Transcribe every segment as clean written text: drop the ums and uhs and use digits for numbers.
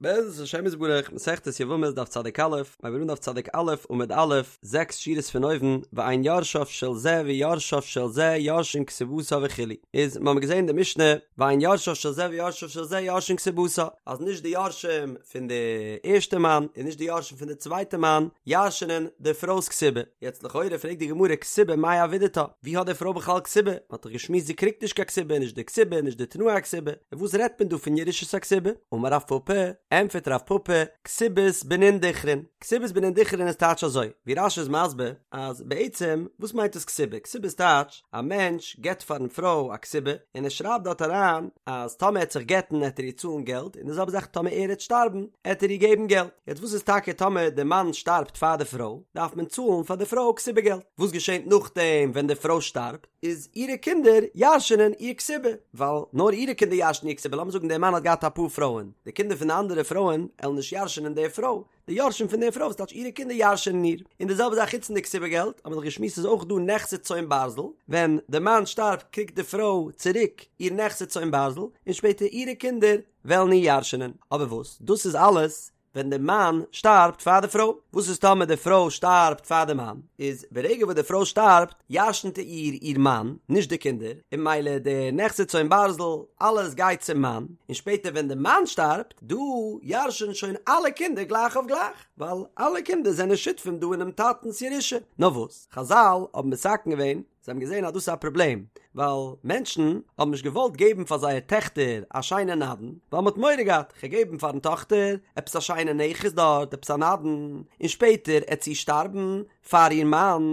בעזרת השם יתברך, מסכת יבמות דף צדיק א', מיר הייבן אן דף צדיק א' עמוד א', זעקס שורות פון אויבן, ואין יורשיו של זה ויורשיו של זה יורשין כתובתה וכו', איז מיר האבן געזען אין די משנה, ואין יורשיו של זה ויורשיו של זה יורשין כתובתה, אז נישט די יורשים פון די ערשטע מאן און נישט די יורשים פון די צווייטע מאן ירש'נען די פרוי'ס כתובה, יעצט לכאורה פרעגט די גמרא כתובה מאי עבידתה, ווי האט די פרוי בכלל כתובה? מען האט דאך געשמועסט זי קריגט נישט קיין כתובה, נישט די כתובה, נישט די תנאי הכתובה, און וואס רעדט מען דא פון ירושת הכתובה? אמר רב פפא, ענטפערט רב פפא, כתובת בנין דכרין, כתובת בנין דכרין איז טייטש אזוי, ווי רש"י איז מסביר, אז בעצם וואס מיינט דאס כתובה? כתובה איז טייטש, א מענטש געבט פארן פרוי א כתובה, און ער שרייבט דארט אריין אז טאמער ער עט זיך גט'ן עט ער איר צאלן געלט, און די זעלבע זאך טאמער ער עט שטארבן עט ער איר געבן געלט. יעצט וואס איז טאקע טאמער די מאן שטארבט פאר די פרוי, דארף מען צאלן פאר די פרוי כתובה געלט. וואס געשענט נאכדעם ווען די פרוי שטארבט? איז אירע קינדער ירש'נען איר כתובה, ווייל נאר אירע קינדער ירש'נען איר כתובה, לאמיר זאגן דער מאן האט געהאט אפאר פרויען, די קינדער פון די אנדערע פרויען עלן נישט ירש'נען די פרוי, די יורשים פון די פרוי, וואס טייטש אירע קינדער ירש'נען איר, און די זעלבע זאך חוץ פון די כתובה געלט, האבן מיר דאך געשמועסט איז אויך דא נכסי צאן ברזל, ווען די מאן שטארבט קריגט די פרוי צוריק איר נכסי צאן ברזל, און שפעטער אירע קינדער וועלן איר ירש'נען, אבער וואס דאס איז אלעס ווען די מאן שטארבט פאר די פרוי, וואס איז טאמער די פרוי שטארבט פאר די מאן, איז ברגע וואס די פרוי שטארבט ירש'נט איר איר מאן, נישט די קינדער, און ממילא די נכסי צאן ברזל, אלעס גייט צום מאן, און שפעטער ווען די מאן שטארבט, דא ירש'ן שוין אלע קינדער גלייך אויף גלייך, ווייל אלע קינדער זענען שותפים דא אינעם טאטנ'ס ירושה. נאר וואס, חזל האבן מתקן געווען, זיי האבן געזען אז דאס איז א פראבלעם, ווייל מענטשן האבן נישט געוואלט געבן פאר זייער טעכטער א שיינע נדן, ווייל מ'האט מורא געהאט, כ'גיי געבן פארן טאכטער עפעס א שיינע נכס דארט, עפעס א נדן, און שפעטער עט זי שטארבן פאר איר מאן,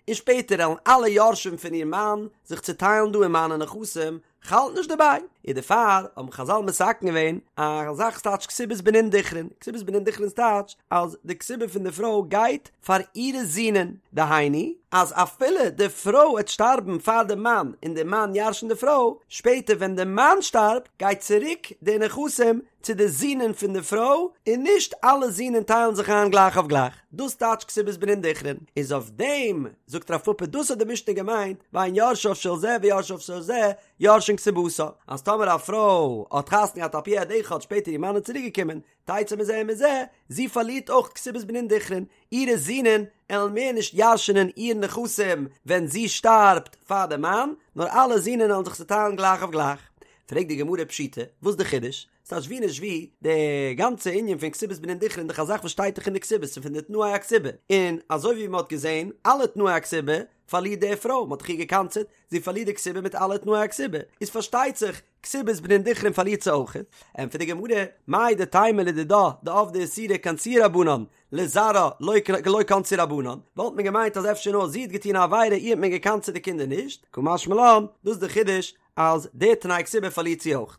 און שפעטער עלן אלע יורשים פון איר מאן זיך צוטיילן דא אין מיינע נכסים, כ'האלט נישט דערביי, און דערפאר האבן חזל מתקן געווען א זאך ס'טייטש כתובת בנין דכרין, כתובת בנין דכרין טייטש אז די כתובה פון די פרוי גייט פאר אירע זינען, דהיינו אז אפילו די פרוי עט שטארבן פאר די מאן און די מאן ירש'נט די פרוי, שפעטער ווען די מאן שטארבט גייט צוריק די נכסים צו די זינען פון די פרוי און נישט אלע זינען טיילן זיך איין גלייך אויף גלייך, דאס טייטש כתובת בנין דכרין, איז אויף דעם זאגט רב פפא דאס האט די משנה געמיינט ואין יורשיו של זה ויורשיו של זה יורשין כתובתה, אז טאמער א פרוי האט חתונה געהאט על פי עד אחד שפעטער איר מאן איז צוריק געקומען תצא מזה ומזה, זי פארלירט אויך כתובת בנין דכרין, אירע זינען עלן מער נישט ירש'נען איר נכסים ווען זי שטארבט פאר די מאן, נאר אלע זינען עלן זיך צוטיילן גלייך אויף גלייך. פרעגט די גמרא פשיטא, וואס די חידוש? ס'טייטש ווי נישט ווי, די גאנצע ענין פון כתובת בנין דכרין דאך א זאך וואס שטייט דאך אין די כתובה, ס'איז פון די תנאי הכתובה, און אזוי ווי מ'האט געזען, אלע תנאי הכתובה פארלירט די פרוי, מ'האט דאך איר געקנס'עט, זי פארלירט די כתובה מיט אלע תנאי הכתובה, איז פארשטייט זיך, כתובת בנין דכרין פארלירט זי אויך. ענטפערט די גמרא, מהו דתימא לדידה דעבדה איסורא קנסוה רבנן, לזרעה לא קנסו רבנן, וואלט מען געמיינט אז אפשר נאר זי האט געטון א עבירה איר האט מען געקנס'עט די קינדער נישט, קא משמע לן, דאס איז די חידוש אז די תנאי כתובה פארלירט זי אויך.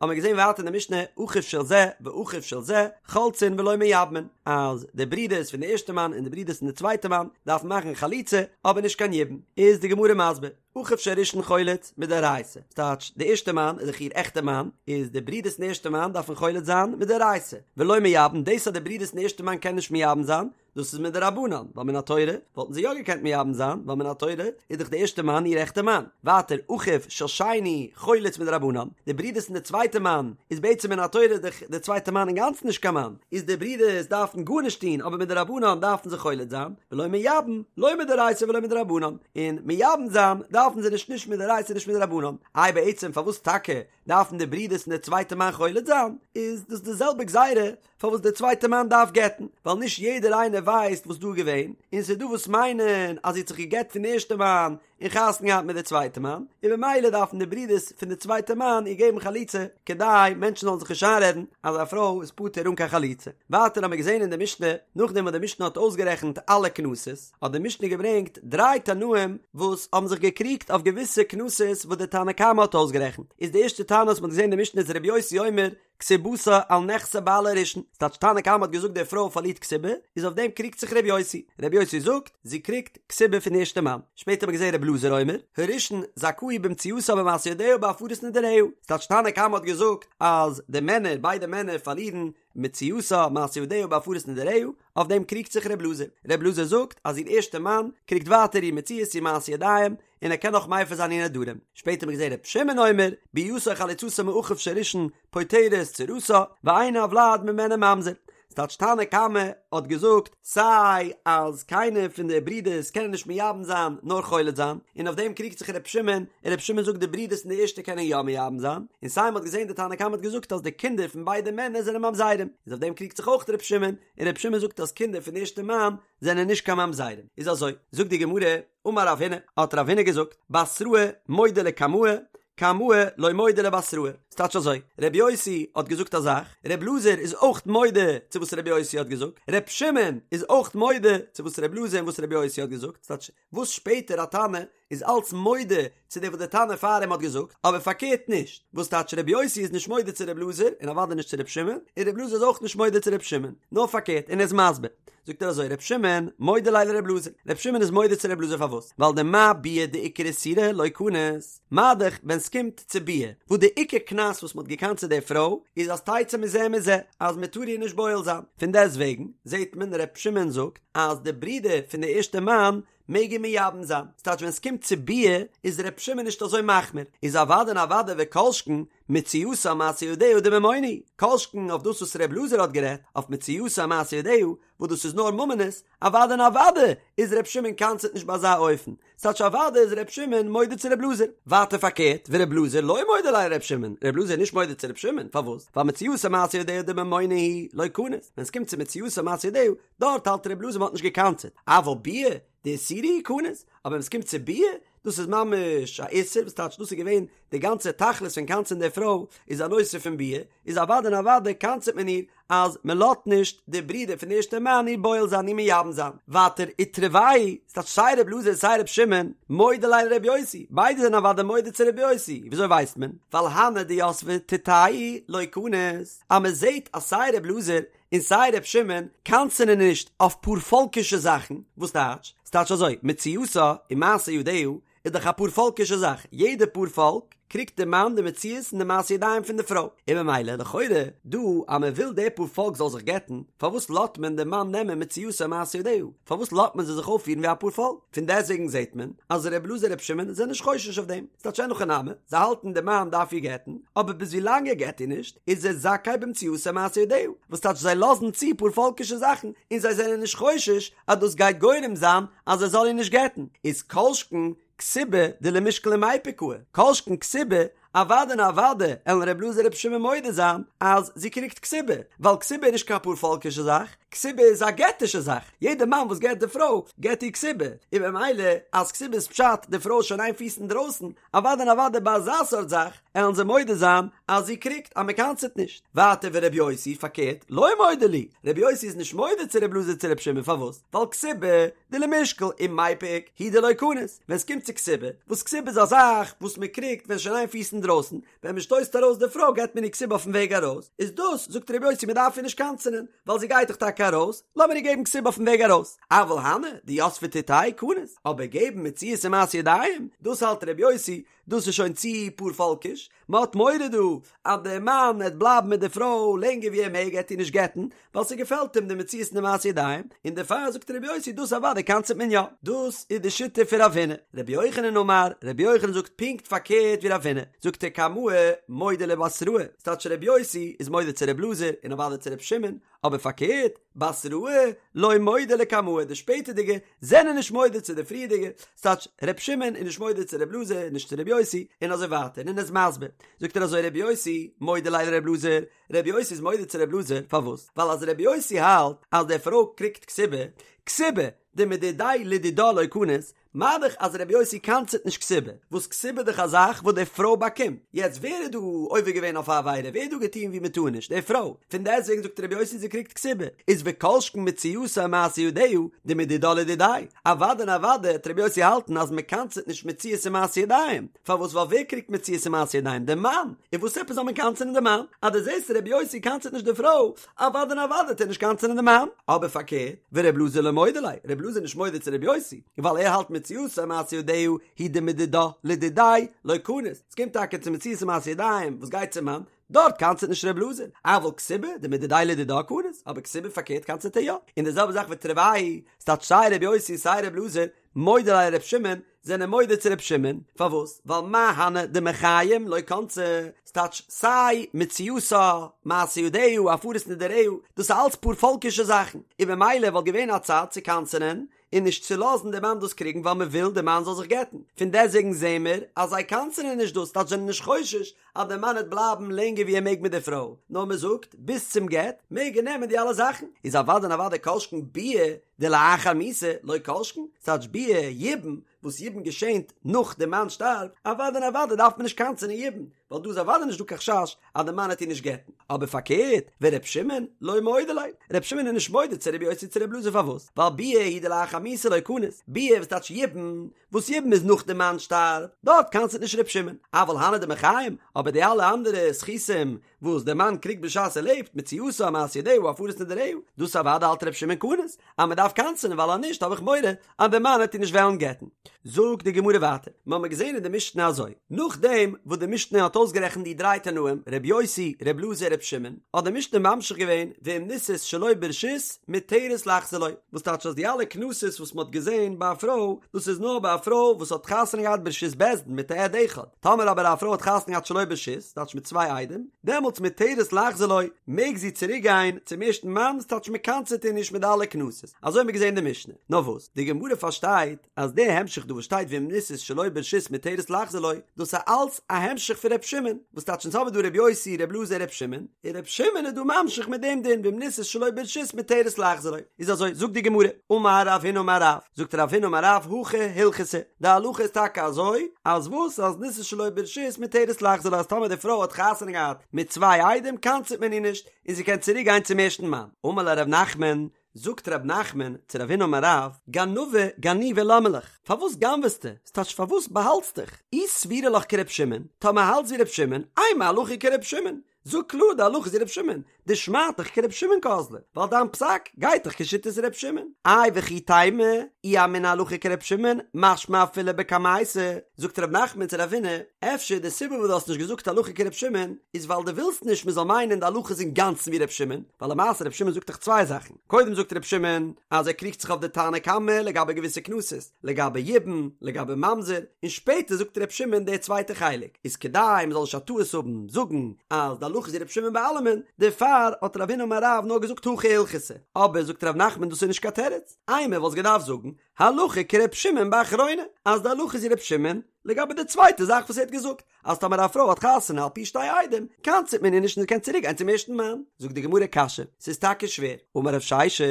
האבן מיר געזען ווייטער אין די משנה אחיו של זה ואחיו של זה חולצין ולא מייבמין, אז די ברידערס פון די ערשטע מאן און די ברידערס פון די צווייטע מאן דארפן מאכן חליצה אבער נישט קיין יבום, איז די גמרא מסביר, אחיו של ראשון חולץ מדאורייתא, ס'טייטש די ערשטע מאן איז דאך איר עכטע מאן, איז די ברידערס פון די ערשטע מאן דארפן חולץ זיין מדאורייתא, ולא מייבם, דאס אז די ברידערס פון די ערשטע מאן קענען נישט מייבם זיין, דאס איז מדרבנן, ווייל מן התורה וואלטן זיי יא געקענט מייבם זיין, ווייל מן התורה איז דאך די ערשטע מאן איר עכטע מאן. ווייטער, אחיו של שני חולץ מדרבנן, די ברידערס פון די צווייטע מאן איז בעצם מן התורה דאך די צווייטע מאן אינגאנצן נישט קיין מאן, איז די ברידערס דארפן גארנישט טון אבער מדרבנן דארפן זיי חולץ זיין, ולא מייבם, לא מדאורייתא ולא מדרבנן, און מייבם זיין דארפן זיי נישט נישט מדאורייתא נישט מדרבנן. איי בעצם פארוואס טאקע דארפן די ברידערס פון די צווייטע מאן חולץ זיין? איז דאס די זעלבע גזירה פארוואס דער צווייטער מאן דארף גט'ן, ווייל נישט יעדער איינער ווייסט וואס דא איז געווען, און ס'איז דא וואס מיינען אז זי האט זיך געגט פון די ערשטע מאן און חתונה געהאט מיט די צווייטע מאן, און במילא דארפן די ברידערס פון די צווייטע מאן איר געבן חליצה, כדי מענטשן זאלן זיך נישט איינרעדן אז א פרוי איז פטור אן קיין חליצה. ווייטער האמיר געזען אין די משנה, נאכדעם וואס די משנה האט אויסגערעכנט אלע קנסות, האט די משנה געברענגט דריי תנאים וואס האבן זיך געקריגט אויף געוויסע קנסות וואס די תנא קמא האט אויסגערעכנט, איז די ערשטע תנא וואס מ'האט געזען אין די משנה איז רבי יוסי אומר, כתובתה על נכסי בעלה הראשון, ס'טייטש תנא קמא האט געזאגט די פרוי פארלירט כתובה, איז אויף דעם קריגט זיך ר' יוסי, ר' יוסי זאגט, זי קריגט כתובה פון ערשטע מאן, שפעטער האט מען געזען ר' אלעזר אומר, הראשון זכאי במציאתה במעשה ידיה ובהפרת נדריה, ס'טייטש תנא קמא האט געזאגט אז די מענער, ביידע מענער פארלירן מציאתה מעשה ידיה ובהפרת נדריה, אויף דעם קריגט זיך ר' אלעזר, ר' אלעזר זאגט אז איר ערשטע מאן קריגט ווייטער איר מציאות איר מעשה ידיים, און ער קען נאך מפר זיין איר נדרים. שפעטער האט מען געזען ר' שמעון אומר, ביאתה או חליצתה מאחיו של ראשון פוטרת צרתה, ואין הולד ממנה ממזר. ס'טייטש תנא קמא האט געזאגט סיי אז קיינער פון די ברידערס קענען נישט מייבם זיין נאר חולץ זיין, און אויף דעם קריגט זיך ר' שמעון, און ר' שמעון זאגט די ברידערס פון די ערשטע קענען יא מייבם זיין, און סיי מ'האט געזען די תנא קמא האט געזאגט אז די קינדער פון ביידע מענער זענען ממזרים, איז אויף דעם קריגט זיך אויך ר' שמעון, און ר' שמעון זאגט אז קינדער פון די ערשטע מאן זענען נישט קיין ממזרים, איז אזוי, זאגט די גמרא, אמר רב הונא, האט רב הונא געזאגט, בתראי מודה לקמאי, קמאי לא מודה לבתראי, ס'טייטש אזוי, ר' יוסי האט געזאגט א זאך, ר' אלעזר איז אויך מודה צו וואס ר' יוסי האט געזאגט, ר' שמעון איז אויך מודה צו וואס ר' אלעזר און וואס ר' יוסי האט געזאגט, ס'טייטש וואס שפעטער א תנא איז אלץ מודה צו דעם וואס דער תנא פאר אים האט געזאגט, אבער פארקערט נישט, וואס טייטש ר' יוסי איז נישט מודה צו ר' אלעזר און אוודאי נישט צו ר' שמעון, און ר' אלעזר איז אויך נישט מודה צו ר' שמעון, נאר פארקערט, און ער איז מסביר. זאגט ער אזוי ר' שמעון מודה ליה לר' אלעזר, ר' שמעון איז מודה צו ר' אלעזר פארוואס? ווייל דמה ביאה דעיקר איסורא לא קניס, מה דאך ווען סקומט צו ביאה, וואס די עיקר קנס וואס מ'האט געקנס'עט די פרוי איז אז תצא מזה ומזה, אז מ'טאר איר נישט בועל זיין, פון דעסט וועגן זעט מען ר' שמעון זאגט אז די ברודער פון די ערשטע מאן מעג איר מייבם זיין, ס'טייטש ווען ס'קומט צו ביאה איז ר' שמעון נישט אזוי מחמיר, איז אוודאי און אוודאי וכל שכן מציאתה ומעשה ידיה דממונא, כל שכן אויף דאס וואס ר' אלעזר האט גערעדט אויף מציאתה ומעשה ידיה וואס דאס איז נאר ממונות, אוודאי און אוודאי איז ר' שמעון קנס'עט נישט ביי אזא אופן, ס'טייטש אוודאי איז ר' שמעון מודה צו ר' אלעזר. ווייטער פארקערט, ור' אלעזר לא מודה ליה לר' שמעון, ר' אלעזר איז נישט מודה צו ר' שמעון, פארוואס? ווייל מציאתה ומעשה ידיה דממונא הוא לא קניס, ווען ס'קומט צו מציאתה ומעשה ידיה, דארט האלט ר' אלעזר מ'האט נישט געקנס'עט, אבל ביאה דאיסורא הוא קניס, אבער ווען ס'קומט צו ביאה, דאס איז ממש א איסור, וואס טייטש דאס איז געווען די גאנצע תכלית פון קנס'ען די פרוי איז א נושא פון ביאה, איז אוודאי און אוודאי קנס'עט מען איר אז מען לאזט נישט די ברודער פון די ערשטע מאן איר בועל זיין איר מייבם זיין. ווייטער ותרוייהו, ס'טייטש סיי ר' אלעזר סיי ר' שמעון, מודה ליה לר' יוסי, ביידע זענען אוודאי מודה צו ר' יוסי, וויאזוי ווייסט מען? ווייל הני דיתבי תותייהו לא קניס, אז מען זעט אז סיי ר' אלעזר און סיי ר' שמעון קנס'ענען נישט אויף פארפאלקישע זאכן, וואס טייטש? ס'טייטש אזוי, מציאתה ומעשה ידיה איז דאך א פארפאלקישע זאך, יעדע פארפאלק קריגט די מאן די מציאות און די מעשה ידיים פון די פרוי, און ממילא לכאורה דא אז מען וויל די פארפאלק זאל זיך גט'ן, פארוואס לאזט מען די מאן נעמען מציאתה ומעשה ידיה? פארוואס לאזט מען זיי זיך אויפפירן ווי א פארפאלק? פון דעסטוועגן זעט מען אז ר' אלעזר ר' שמעון זענען נישט חושש אויף דעם, ס'טייטש אין הכי נמי, זיי האלטן די מאן דארף איר גט'ן, אבער ביז ווילאנג ער גט איר נישט איז ער זכאי במציאתה ומעשה ידיה, וואס טייטש זיי לאזן צו פארפאלקישע זאכן און זיי זענען נישט חושש אז דאס גייט גורם זיין אז ער זאל איר נישט גט'ן, איז כל שכן כתובה דלמישקל ומיפק קאי, כל שכן כתובה, אוודאי און אוודאי עלן ר' אלעזר ר' שמעון מודה זיין אז זי קריגט כתובה, ווייל כתובה איז נישט קיין פארפאלקישע זאך, כתובה איז א געטישע זאך, יעדע מאן וואס גט די פרוי געט איר כתובה, און במילא אז כתובה איז פשט די פרוי איז שוין איין פיס אינדרויסן, אוודאי און אוודאי ביי אזא סארט זאך עלן זיי מודה זיין אז זי קריגט אז מען קנס'עט נישט. ווייטער ור' יוסי, פארקערט, לא מודה להו, ר' יוסי איז נישט מודה צו ר' אלעזר צו ר' שמעון פארוואס? ווייל כתובה דלמישקל ומיפק הוא דלא קניס, ווען ס'קומט צו כתובה, וואס כתובה איז א זאך וואס מען קריגט ווען שוין איין פיס אינדרויסן, ווען מען שטויסט ארויס די פרוי געט מען איר כתובה אויפן וועג ארויס, איז דאס זאגט ר' יוסי מען דארף איר נישט קנס'ענען, ווייל זי גייט דאך טאקע ארויס, לאמיר איר געבן כתובה אויפן וועג ארויס, אבל הני דיתבי תותייהו קניס, אבער געבן מציאות און מעשה ידיים, דאס האלט ר' יוסי, דאס איז שוין צו פארפאלקיש, מען האט מורא דא אז דער מאן וועט בלייבן מיט די פרוי לענגער ווי ער מעג, ער וועט איר נישט גט'ן, ווייל ס'געפעלט אים די מציאות און די מעשה ידיים, און דערפאר זאגט ר' יוסי דאס אוודאי קנס'עט מען יא. דאס איז די שיטה פון רב הונא. רבי יוחנן אמר, רבי יוחנן זאגט פונקט פארקערט ווי רב הונא, זאגט ער קמאי מודה לבתראי, ס'טייטש רבי יוסי איז מודה צו רבי אלעזר און אוודאי צו רבי שמעון, אבער פארקערט, בתראי לא מודה לקמאי, די שפעטערדיגע זענען נישט מודה צו די פריערדיגע, ס'טייטש ר' שמעון איז נישט מודה צו ר' אלעזר, נישט צו ר' יוסי, און אזוי ווייטער, און ער איז מסביר, זאגט ער אזוי ר' יוסי מודה ליה לר' אלעזר, ר' יוסי איז מודה צו ר' אלעזר, פארוואס? ווייל אז ר' יוסי האלט אז די פרוי קריגט כתובה, כתובה דמדידיה לדידה לא קניס, מה דאך אז רבי יוסי קנס'עט נישט כתובה, וואס כתובה איז דאך א זאך וואס די פרוי באקומט, יעצט ווער איז דא עובר געווען אויף א עבירה, ווער האט דא געטון ווי מען טאר נישט, די פרוי, פון דעסטוועגן זאגט רבי יוסי זי קריגט כתובה, איז וכל שכן מציאתה ומעשה ידיה, דמדידה לדידיה, אוודאי און אוודאי העט רבי יוסי האלטן אז מען קנס'עט נישט מציאות און מעשה ידיים, פארוואס ווייל ווער קריגט מציאות און מעשה ידיים, די מאן, און וואס עפעס זאל מען קנס'ענען די מאן, אז דו זעסט רבי יוסי קנס'עט נישט די פרוי, אוודאי און אוודאי העט ער נישט קנס'ענען די מאן, אבער פארקערט, ור' אלעזר לא מודה ליה, ר' אלעזר איז נישט מודה צו ר' יוסי, ווייל ער האלט מציאתה ומעשה ידיה הוא דמדידה לדידיה לא קניס, ס'קומט טאקע צו מציאות ומעשה ידיים וואס גייט צום מאן, דארט קנס'עט נישט ר' אלעזר, אבל כתובה דמדידיה לדידה קניס, אבער כתובה פארקערט קנס'עט ער יא, און די זעלבע זאך ותרוייהו, ס'טייטש סיי ר' יוסי און סיי ר' אלעזר. מודה ליה לר' שמעון, זענען מודה צו ר' שמעון, פארוואס? ווייל מה הני דמחיים לא קנסי, ס'טייטש סיי מציאתה, מעשה ידיה, הפרת נדריה, דאס איז אלץ פארפאלקישע זאכן, און במילא וואלט געווען א צד צו קנס'ענען און נישט צו לאזן די מאן דאס קריגן ווייל מ'וויל די מאן זאל זיך גט'ן, פון דעסוועגן זעהן מיר אז זיי קנס'ענען נישט דאס, ס'טייטש זענען נישט חושש אז די מאן העט בלייבן לענגער ווי ער מעג מיט די פרוי, נאר מ'זאגט ביז צום גט מעג ער נעמען די אלע זאכן, איז אוודאי און אוודאי כל שכן ביאה דלאחר מיתה לא כל שכן, ס'טייטש ביאה יבום, וואס יבום געשענט נאך די מאן שטארבט, אוודאי און אוודאי דארף מען נישט קנס'ענען יבום, ווייל דא איז אוודאי נישט דא קיין חשש אז די מאן העט איר נישט גט'ן, אבער פארקערט, ור' שמעון לא מודה ליה, ר' שמעון איז נישט מודה צו ר' יוסי צו ר' אלעזר פארוואס? ווייל ביאה הוא דלאחר מיתה לא קניס, ביאה וואס טייטש יבום, וואס יבום איז נאך די מאן שטארבט, דארט קנס'עט נישט ר' שמעון, אבל הני דמחיים, אבער די אלע אנדערע זכותים וואס דער מאן קריגט בשעת ער לעבט, מציאתה, מעשה ידיה, הפרת נדריה, דאס אוודאי האלט ר' שמעון קניס, אז מען דארף קנס'ענען ווייל אז נישט האב איך מורא אז דער מאן העט איר נישט וועלן גט'ן. זאגט די גמרא ווייטער, מיר האבן געזען אין די משנה אזוי, נאכדעם וואס די משנה האט אויסגערעכנט די דריי תנאים, ר' יוסי, ר' אלעזר, ר' שמעון, האט די משנה ממשיך געווען, ואם נישאת שלא ברשות, מותרת לחזור לו, וואס טייטש אז די אלע קנסות וואס מען האט געזען ביי א פרוי, דאס איז נאר ביי א פרוי וואס האט חתונה געהאט ברשות בית דין מיט א עד אחד, טאמער אבער א פרוי האט חתונה געהאט שלא ברשות, טייטש מיט צוויי עדים, דעמאלטס מותרת לחזור לו, מעג זי צוריק גיין צום ערשטן מאן, וואס טייטש מען קנס'עט איר נישט מיט די אלע קנסות, אזוי האבן מיר געזען אין די משנה. נאר וואס, די גמרא פארשטייט אז די המשך דא וואס שטייט ואם נישאת שלא ברשות מותרת לחזור לו, דאס איז אלץ א המשך פון ר' שמעון, וואס טייטש אונז האבן דא ר' יוסי, ר' אלעזר, ר' שמעון, און ר' שמעון איז דא ממשיך מיט דעם דין ואם נישאת שלא ברשות מותרת לחזור לו, איז אזוי, זאגט די גמרא, אמר רב הונא אמר רב, זאגט רב הונא אמר רב, הכי הלכתא, די הלכה איז טאקע אזוי, אז וואס אז נישאת שלא ברשות מותרת לחזור לו אז טאמער די פרוי האט חתונה געהאט מיט צוויי עדים קנס'עט מען איר נישט און זי קען צוריק גיין צום ערשטן מאן. אמר ליה ר' נחמן, זאגט ר' נחמן צו רב הונא אמר רב, גנבא גנובי למה לך, פארוואס גנב'סטו, ס'טייטש פארוואס באהאלטסט דיך, אי סבירא לך כר' שמעון, טאמער האלטסט ווי ר' שמעון, אימא הלכה כר' שמעון, זאג קלאר די הלכה איז ווי ר' שמעון, דשמעתך כר' שמעון קאזלא, ווייל דיין פסק גייט דאך כשיטת ר' שמעון. איי וכי תימא, אי אמינא הלכה כר' שמעון, משמע אפילו בקמייתא, זאגט ר' נחמן צו רב הונא, אפשר די סיבה וואס דו האסט נישט געזאגט הלכה כר' שמעון, איז ווייל דו ווילסט נישט מען זאל מיינען די הלכה איז אינגאנצן ווי ר' שמעון, ווייל למעשה ר' שמעון זאגט דאך צוויי זאכן, קודם זאגט ר' שמעון אז ער קריגט זיך אויף די תנא קמא לגבי געוויסע קנסות, לגבי יבום, לגבי ממזר, און שפעטער זאגט ר' שמעון די צווייטע חלק, איז כדי מ'זאל נישט א טעות האבן זאגן אז די הלכה איז ווי ר' שמעון ביי אלעמען, דערפאר האט רב הונא אמר רב נאר געזאגט הכי הלכתא, אבער זאגט ר' נחמן דאס איז נישט קיין תירוץ, אימא וואלסט געדארפט זאגן הלכה כר' שמעון באחרונה, אז די הלכה איז ווי ר' שמעון לגבי די צווייטע זאך וואס ער האט געזאגט, אז טאמער א פרוי האט חתונה על פי שתי עדים, קנס'עט מען איר נישט און זי קען צוריק גיין צום ערשטן מאן. זאגט די גמרא קשיא, ס'איז טאקע שווער. אמר רב ששת,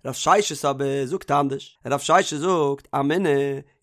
רב ששת אבער זאגט אנדערש, רב ששת זאגט, אמינא,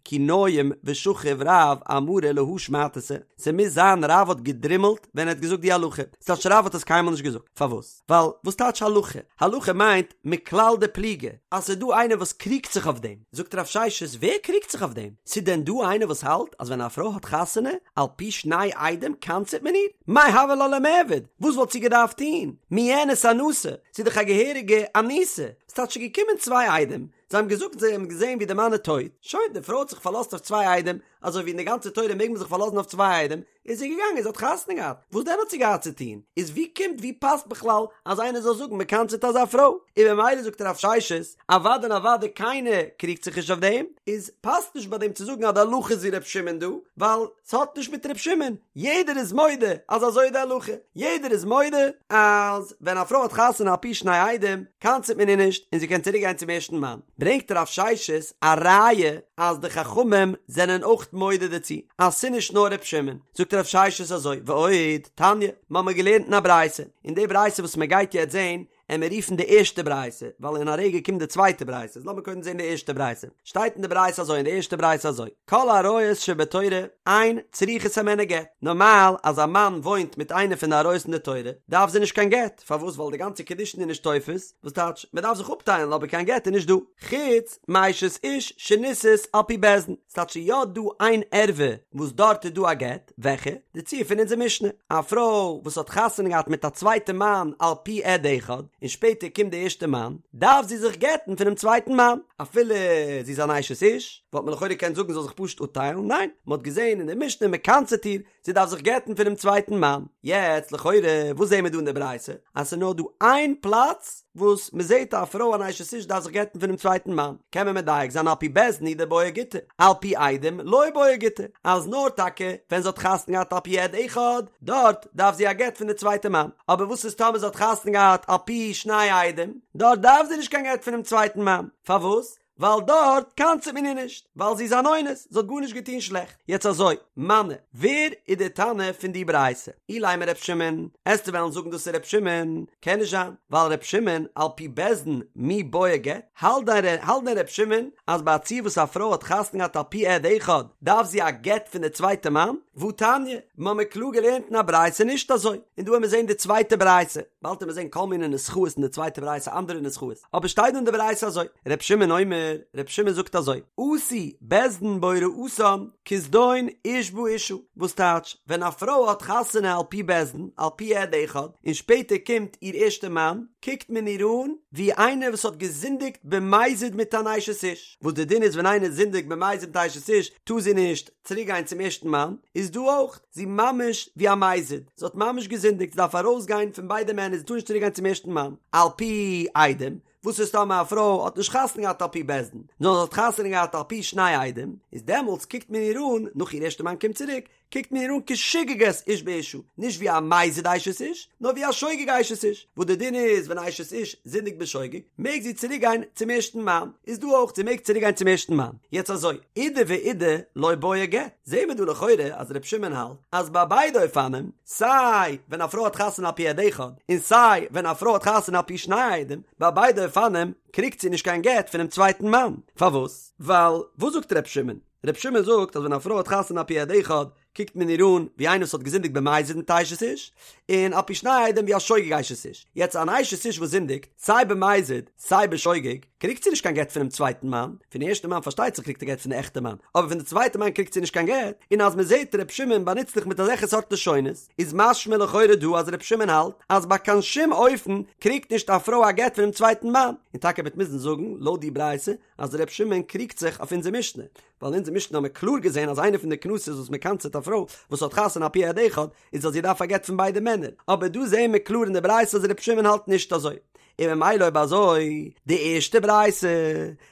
כי ניים ושכיב רב אמרה להא שמעתתא, ס'מוז זיין רב האט געדרימלט ווען ער האט געזאגט די הלכה, ס'טייטש רב האט עס קיינמאל נישט געזאגט, פארוואס? ווייל וואס טייטש הלכה? הלכה מיינט מכלל דפליגי, אז ס'איז דא איינער וואס קריגט זיך אויף דעם. זאגט רב ששת, ווער קריגט זיך אויף דעם? ס'איז דען דא איינער וואס האלט אז ווען א פרוי האט חתונה על פי שני עדים קנס'עט מען איר? מאי הוה לה למיעבד? וואס וואלט זי געדארפט טון? מיאנס אנסה? ס'איז דאך א געהעריגע אנוסה. ס'טייטש ס'איז געקומען צוויי עדים, זיי האבן געזאגט זיי האבן געזען ווי די מאן איז טויט, שוין, די פרוי האט זיך פארלאזט אויף צוויי עדים, אזוי ווי אין די גאנצע תורה מעג מען זיך פארלאזן אויף צוויי עדים, איז זי געגאנגען זי האט חתונה געהאט, וואס דען האט זי געהאט צו טון? איז ווי קומט ווי פאסט בכלל אז איינער זאל זאגן מען קנס'עט אזא פרוי? און ממילא זאגט רב ששת, אוודאי און אוודאי קיינער קריגט זיך נישט אויף דעם, איז פאסט נישט ביי דעם צו זאגן אז די הלכה איז ווי ר' שמעון דא, ווייל ס'האט נישט מיט ר' שמעון, יעדער איז מודה אז אזוי איז די הלכה, יעדער איז מודה אז ווען א פרוי האט חתונה על פי שני עדים קנס'עט מען איר נישט און זי קען צוריק גיין צום ערשטן מאן. ברענגט רב ששת א ראיה אז די חכמים זענען אויך מודה דערצו אז ס'נישט נאר ר' שמעון, זאגט רב ששת אזוי, ועוד, תניא, מ'האמיר געלערנט אין א ברייתא, און די ברייתא וואס מ'גייט יעצט זעהן, עמיר רופן די ערשטע ברייתא, ווייל אין א רגע קומט די צווייטע ברייתא, איז לאמיר קודם זעהן די ערשטע ברייתא, שטייט אין די ברייתא אזוי אין די ערשטע ברייתא אזוי, כל עריות שבתורה אין צריכות הימנו גט, נארמאל אז א מאן וואוינט מיט איינע פון די עריות אין די תורה, דארף זי נישט קיין גט, פארוואס ווייל די גאנצע קידושין איז נישט תופס, וואס טייטש, מען דארף זיך אפטיילן אבער קיין גט איז נישט דא, חוץ מאשת איש שנישאת על פי בית דין, ס'טייטש ס'איז יא דא איין ערווה וואס דארט איז דא א גט, וועלכע? די ציור פון אונזער משנה, א פרוי וואס האט חתונה געהאט מיט א צווייטע מאן על פי עד אחד, און שפעטער קומט די ערשטע מאן, דארף זי זיך גט'ן פונעם צווייטן מאן, אפילו זי איז אן אשת איש. וואלט מען לכאורה געקענט זאגן זי זאל זיך פשוט אפטיילן, ניין, מען האט געזען אין די משנה מען קנס'עט איר, זי דארף זיך גט'ן פונעם צווייטן מאן. יעצט לכאורה וואס זעהן מיר דא אין די ברייתא? אז ס'איז נאר דא איין פלאץ וואס מ'זעהט א פרוי אן אשת איש דארף זיך גט'ן פונעם צווייטן מאן, קען מען מדייק זיין על פי בית דין הוא דבעיא גיטא, על פי עדים לא בעיא גיטא, אז נאר טאקע ווען זי האט חתונה געהאט על פי עד אחד, דארט דארף זי א גט פון די צווייטע מאן, אבער וואס איז טאמער זי האט חתונה געהאט על פי שני עדים, דארט דארף זי נישט קיין גט פונעם צווייטן מאן, פארוואס? ווייל דארט קנס'עט מען איר נישט, ווייל זי איז אן אונס, זי האט גארנישט געטון שלעכט. יעצט אזוי, מני, ווער איז דער תנא פון די ברייתא? אילימא ר' שמעון, עסטו וועלן זאגן דאס איז ר' שמעון? קען נישט זיין, ווייל ר' שמעון על פי בית דין מי בעיא גט, האלט דען האלט דען ר' שמעון אז ביי א ציור וואס א פרוי האט חתונה געהאט על פי עד אחד דארף זי א גט פון די צווייטע מאן? והתניא, מ'האמיר קלאר געלערנט אין א ברייתא נישט אזוי, און דא וועמיר זעהן די צווייטע ברייתא, באלד וועמיר זעהן כל מיני נוסחאות אין די צווייטע ברייתא אנדערע נוסחאות, אבער שטייט דא אין די ברייתא אזוי, ר' שמעון אומר, ר' שמעון זאגט אזוי, עשו בית דין בהוראתן כזדון איש באשה, וואס טייטש, ווען א פרוי האט חתונה על פי בית דין, על פי עד אחד, און שפעטער קומט איר ערשטע מאן, קוקט מען איר אן ווי איינער וואס האט געזינדיגט במזיד מיט אן אשת איש, וואס די דין איז ווען איינער זינדיגט במזיד מיט אשת איש, טאר זי נישט צוריק גיין צום ערשטן מאן, איז דא אויך, זי ממש ווי א מזיד, זי האט ממש געזינדיגט, זי דארף ארויס גיין פון ביידע מענער, זי טאר נישט צוריק גיין צום ערשטן מאן, על פי עדים, וואס איז טאמער א פרוי האט נישט חתונה געהאט על פי בית דין, נאר זי האט חתונה געהאט על פי שני עדים, איז דעמאלטס קוקט מען איר אן, נאך איר ערשטע מאן קומט צוריק, קוקט מען איר אן כשוגגת איש באשה, נישט ווי א מזיד אשת איש, נאר ווי א שוגג אשת איש, וואס די דין איז ווען א אשת איש זינדיגט בשוגג, מעג זי צוריק גיין צום ערשטן מאן, איז דא אויך זי מעג צוריק גיין צום ערשטן מאן, יעצט אזוי, אידי ואידי לא בעיא גט, זעהן מיר דא לכאורה אז ר' שמעון האלט אז ביי ביידע אופנים, סיי ווען א פרוי האט חתונה על פי עד אחד, און סיי ווען א פרוי האט חתונה על פי שני עדים, ביי ביידע אופנים קריגט זי נישט קיין גט פונעם צווייטן מאן, פארוואס? ווייל וואס זאגט ר' שמעון? ר' שמעון זאגט אז ווען א פרוי האט חתונה על פי עד אחד קוקט מען איר אן ווי איינער וואס האט געזינדיגט במזיד מיט אשת איש, און על פי שני עדים ווי א שוגג אשת איש. יעצט אן אשת איש וואס זינדיגט סיי במזיד סיי בשוגג קריגט זי נישט קיין גט פונעם צווייטן מאן, פון די ערשטע מאן פארשטייט זיך קריגט זי גט פון די עכטע מאן, אבער פון די צווייטע מאן קריגט זי נישט קיין גט, און אז מען זעט ר' שמעון באנוצט זיך מיט אזעלכע סארט לשונות איז משמע לכאורה דא אז ר' שמעון האלט אז ביי קיין שום אופן קריגט נישט א פרוי א גט פונעם צווייטן מאן, און טאקע מ'וועט מוזן זאגן לויט די ברייתא אז ר' שמעון קריגט זיך אויף אונזער משנה, ווייל אין אונזער משנה האבן מיר קלאר געזען אז איינע פון די קנסות וואס מען קנס'עט א פרוי וואס האט חתונה על פי עד אחד איז אז זי דארף א גט פון ביידע מענער, אבער דא זעען מיר קלאר אין די ברייתא אז ר' שמעון האלט נישט אזוי, און ממילא אויב אזוי די ערשטע ברייתא,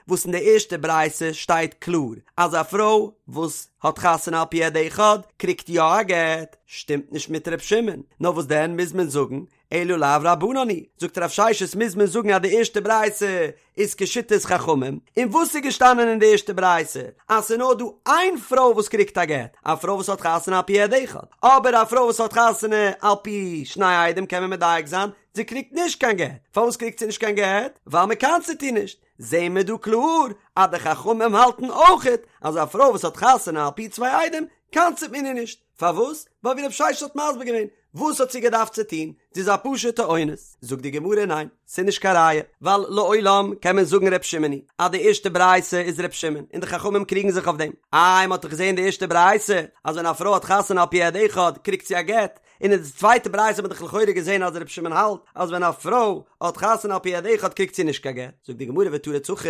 וואס אין די ערשטע ברייתא שטייט קלאר אז א פרוי וואס האט חתונה על פי עד אחד קריגט יא א גט, שטימט נישט מיט ר' שמעון, נאר וואס דען מוז מען זאגן אלא לאו רבנן היא, זאגט רב ששת מוז מען זאגן אז די ערשטע ברייתא איז כשיטת חכמים, און וואס איז געשטאנען אין די ערשטע ברייתא? אז ס'איז נאר דא איין פרוי וואס קריגט א גט, א פרוי וואס האט חתונה על פי עד אחד, אבער א פרוי וואס האט חתונה על פי שני עדים קען מען מדייק זיין, זי קריגט נישט קיין גט, פארוואס קריגט זי נישט קיין גט? ווייל מען קנס'עט איר נישט, זעהן מיר דא קלאר אז די חכמים האלטן אויכעט אז א פרוי וואס האט חתונה על פי צוויי עדים קנס'עט מען איר נישט, פארוואס? ווייל ווי רב ששת האט מסביר געווען, וואס האט זי געדארפט צו טון? זי איז א פשוטע אונס. זאגט די גמרא ניין, ס'איז נישט קיין ראיה, ווייל לעולם קען מען זאגן ר' שמעון היא, אז די ערשטע ברייתא איז ר' שמעון, און די חכמים קריגן זיך אויף דעם. איי מ'האט דאך געזען די ערשטע ברייתא, אז ווען א פרוי האט חתונה על פי עד אחד קריגט זי א גט, און אין די צווייטע ברייתא האט מען דאך לכאורה געזען אז ר' שמעון האלט אז ווען א פרוי האט חתונה על פי עד אחד קריגט זי נישט קיין גט. זאגט די גמרא ותריץ הכי,